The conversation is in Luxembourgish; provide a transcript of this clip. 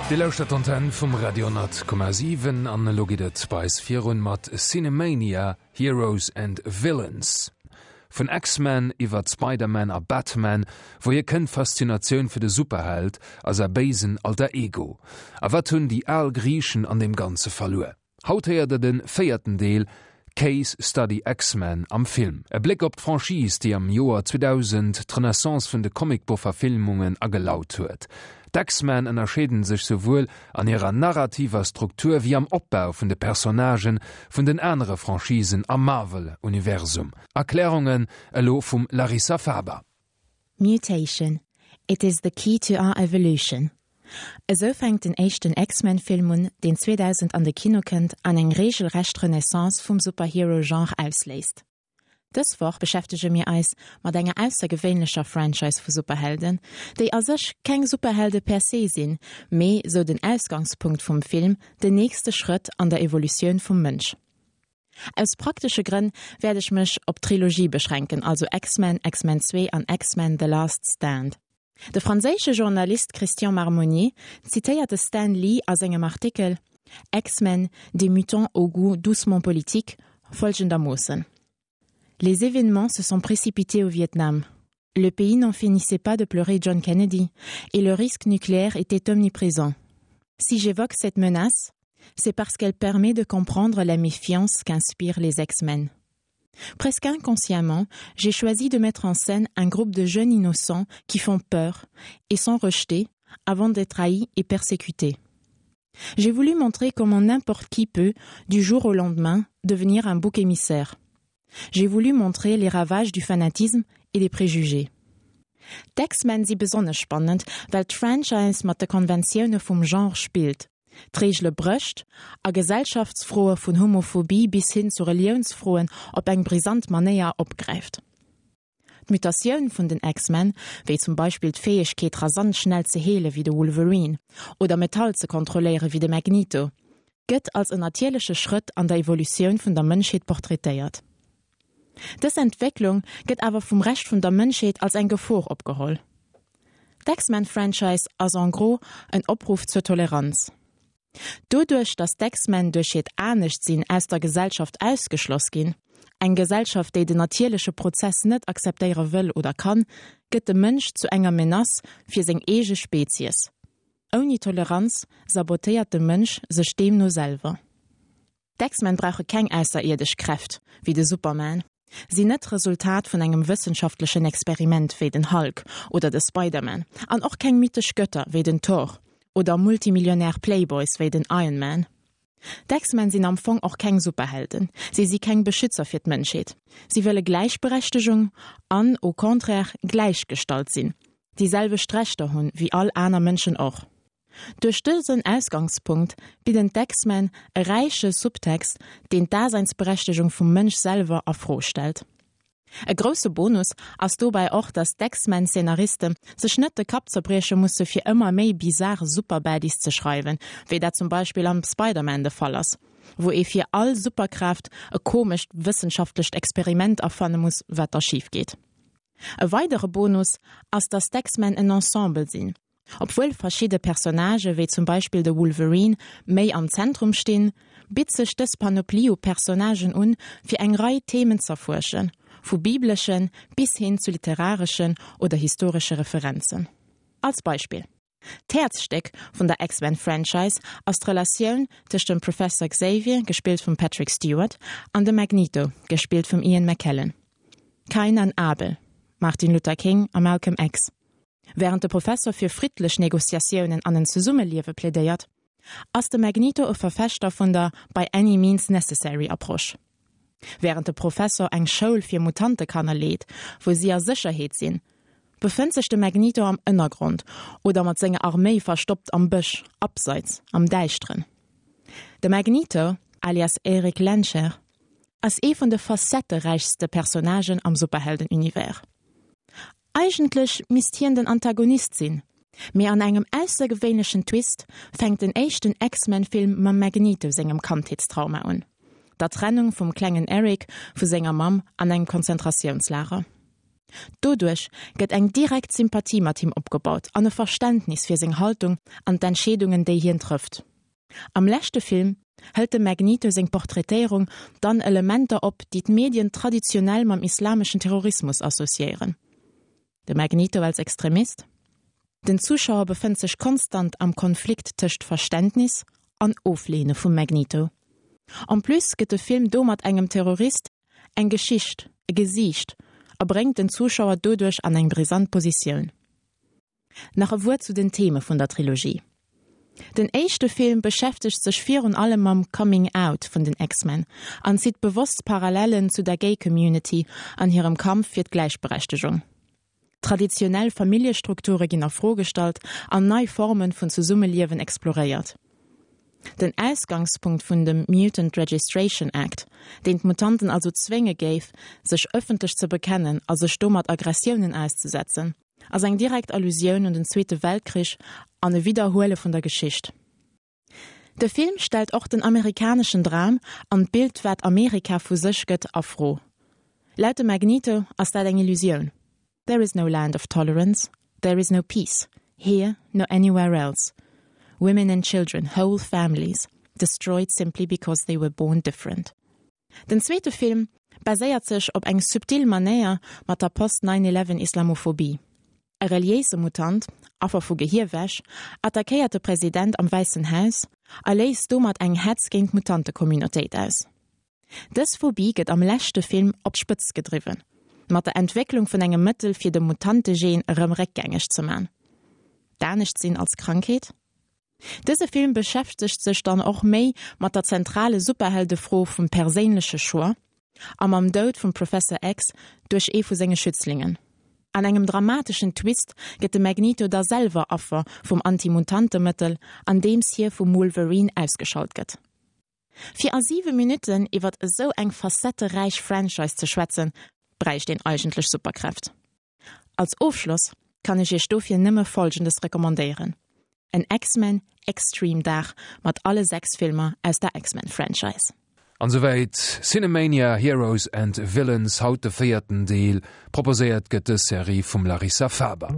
Dir lauschtert d'Antenn vum Radio 10,7 an elo geet et bei eis virun mat Cinemania, Heroes and Villains. Vun X-Men iwwert Spider-Man a Batman, wouhier kënnt d'Faszinatioun fir de Superheld a säi béisen Alter Ego? A wat hunn déi al Griichen an deem Ganze verluer? Haut héiert der de véierten Deel, Case Study X-Men am Film. E Bléck op d'Franchise, déi am Joer 2000 d'Renaissance vun de Comicboch-Verfilmungen agelaut huet. D'X-Men ënnerscheeden sech souwuel an hirer narrativer Struktur wéi am Opbau vun de Personnagen vun den anere Franchisen am Marvel-Universum. Erklärungen elo vum Larissa Faber. Mutation, it is the key to our evolution. Esou fänkt den éischten X-Men-Film un, deen 2000 an de Kino kënnt an eng reegelrecht Renaissance vum Superhero-Genre ausléist. Dës Woch beschäftege mir eis mat enger aussergewéinlecher Franchise vu Superhelden, déi a sech keng Superhelde per se sinn, mee, sou den Ausgangspunkt vum Film, den nächste Schrëtt an der Evolutioun vum Mënsch. Aus praktesche Grënn wäert ech mech op d'Trilogie beschränken, also X-Men, X-Men 2 an X-Men, The Last Stand. De franséische Journalist Christian Marmonnier zitéiert de Stan Lee a sengem Artikel X-Men, des mutants au goût doucement politique folgendermoossen, Les événements se sont précipités au Vietnam. Le pays n'en finissait pas de pleurer John Kennedy et le risque nucléaire était omniprésent. Si j'évoque cette menace, c'est parce qu'elle permet de comprendre la méfiance qu'inspirent les X-Men. Presque inconsciemment, j'ai choisi de mettre en scène un groupe de jeunes innocents qui font peur et sont rejetés avant d'être haïs et persécutés. J'ai voulu montrer comment n'importe qui peut, du jour au lendemain, devenir un bouc émissaire. J'ai voulu montrer les ravages du fanatisme et des préjugés. D'X-Men si besonnesch spannend, well d'Franchise mat de Konventioune vum Genre spillt, d'Reegele brécht a Gesellschaftsfroe vun Homophobie bis hin zu Reliounsfroen op eng brisant Manéier opgräift. D'Mutatioun vun den X-Men, wéi zum Beispill d'Fäegkeet rasant schnell ze heele wéi de Wolverine oder Metall ze kontrolléiere wéi de Magneto, gëtt als en natierleche Schrëtt an der Evolutioun vun der Mënschheet portraitéiert. Dës Entwécklung gëtt awer vum Rescht vun der Mënschheet als eng Gefor opgeholl. D'X-Men-Franchise ass en gros en Opruff zur Toleranz. Doduerch, datt d'X-Men duerch hiert Aneschtsinn aus der Gesellschaft ausgeschloss ginn, eng Gesellschaft, déi den natierleche Prozess net akzeptéiere wëll oder kann, gëtt de Mënsch zu enger Menace fir seng eege Spezies. Ouni Toleranz sabotéiert de Mënsch sech deemno selwer. D'X-Men brauche keng ausserierdesch Kräft, wéi de Superman, sinn net d'Resultat vun engem wëssenschaftlechen Experiment wéi den Hulk oder de Spider-Man an och keng mythesch Götter wéi den Thor oder Multimillionär Playboys wéi den Iron Man. D'X-Men sinn am Fong och keng Superhelden, si si keng Beschützer fir d'Mënschheet. Si wëlle Gläichberechtegung an, au contraire, gläichgestallt sinn, déi selwecht Rechter hunn wéi all aner Mënschen och. Duerch dësen Ausgangspunkt bidden d'X-Men e räiche Subtext, deen d'Daseinsberechtegung vum Mënsch selwer a Fro stellt. E grousse Bonus ass dobäi och, datt d'X-Men-Szenariste sech net de Kapp zerbrieche musse fir ëmmer méi bizar Superbaddies ze schreiwen, wéi dat zum Beispill am Spider-Man de Fall ass, wou ee fir all Superkraaft e komescht wëssenschaftlecht Experiment erfanne muss, wat da schif geet. E weidere Bonus ass, datt d'X-Men en Ensemble sinn. Obwuel verschidde Personnagë wéi zum Beispill de Wolverine méi am Zentrum stinn, bitt sech dës Panoplie u Personnagen un, fir eng Rei Themen z'erfuerschen, vu bibleschen bis hin zu literareschen oder historesche Referenzen. Als Beispill. D'Häerzstéck vun der X-Men-Franchise ass d'Relatioun tëscht dem Professor Xavier, gespillt vum Patrick Stewart, an dem Magneto, gespillt vum Ian McKellen. Kain an Abel, Martin Luther King a Malcolm X. Wärend de Professor fir friddlech Negociatiounen an en Zesummeliewe plädéiert, ass de Magneto e Verfechter vun der by any means necessary Approche. Wärend de Professor eng Schoul fir Mutantekanner leet, wou si a Sécherheet sinn, befënnt sech de Magneto am Ënnergrond oder mat senger Arméi verstoppt am Bësch, abseits, am Däischteren. De Magneto, alias Erik Lehnsherr, ass ee vun de facetteräichste Personnagen am Superhelden-Univers. Eigentlech misst hien den Antagonist sinn, mee an engem aussergewéinlechen Twist fänkt den éischten X-Men-Film mam Magneto sengem Kandheetstrauma un, der Trennung vum klengen Eric vu senger Mamm an engem Konzentratiounslager. Doduerch gëtt eng direkt Sympathie mat him opgebaut an e Verständnis fir seng Haltung an d'Entscheedungen, déi hien trëfft. Am leschte Film hëlt dem Magneto seng Portraitéierung dann Elementer op, déi d'Medien traditionell mam islameschen Terrorismus associéieren. De Magneto als Extremist? Den Zuschauer befënnt sech konstant am Konflikt tëscht Verständnis an Ofleene vum Magneto. En plus gëtt de Film domat engem Terrorist eng Geschicht, e Gesiicht a bréngt den Zuschauer doduerch an eng brisant Positioun. Nach e Wuert zu den Theme vun der Trilogie. Den éischte Film beschäftegt sech virun allem mam Coming Out vun den X-Men an zitt bewosst Parallellen zu der Gay Community an hirem Kampf fir d'Gläichberechtegung. Traditionell Familljestrukture ginn a Fro gestallt an nei Formen vun Zesummeliewen exploréiert. Den Ausgangspunkt vun dem Mutant Registration Act, deen d'Mutanten also zwénge géif, sech ëffentlech ze bekennen a sech domat Aggressiounen auszesetzen, ass eng direkt Allusioun un den Zweete Weltkrich an e Widderhuele vun der Geschicht. De Film stellt och den amerikaneschen Dram an d'Bild wat Amerika vu sech gëtt a Fro. Laut dem Magneto ass dat eng Illusioun, There is no land of tolerance, there is no peace, here nor anywhere else. Women and children, whole families, destroyed simply because they were born different. Den zweete Film baséiert sech op eng subtil Manéier mat der Post-Nine-Eleven Islamophobie. E reliéise Mutant, Affer vu Gehierwäsch, attackéiert de President am Wäissen Haus a léist domat eng Hetz géint d'Mutantecommunautéit aus. Dës Phobie gëtt am leschte Film op d'Spëtzt gedriwwen, mat der Entwécklung vun engem Mëttel fir de Mutantegen erëm réckgängeg ze man. D'Anescht-Sinn als Krankheet? Dëse Film beschäftegt sech dann och méi mat der zentrale Superheldefro vum perséinleche Choix a mam Doud vum Professor X duerch ee vu senge Schützlingen. An engem dramateschen Twist gëtt de Magneto da selwer Affer vum Anti-Mutantemëttel, andeems hie vum Wolverine ausgeschalt gëtt. Fir a 7 Minutten iwwert esou eng facetteräich Franchise ze schwätzen, bräicht een eigentlech Superkräft. Als Ofschloss kann ech iech dofir nëmme folgendes recommandéieren, en X-Men Extreme Dag mat alle 6 Filmer aus der X-Men Franchise. An souwäit Cinemania Heroes and Villains, haut de véierten Deel. Proposéiert gëtt dës Serie vum Larissa Faber.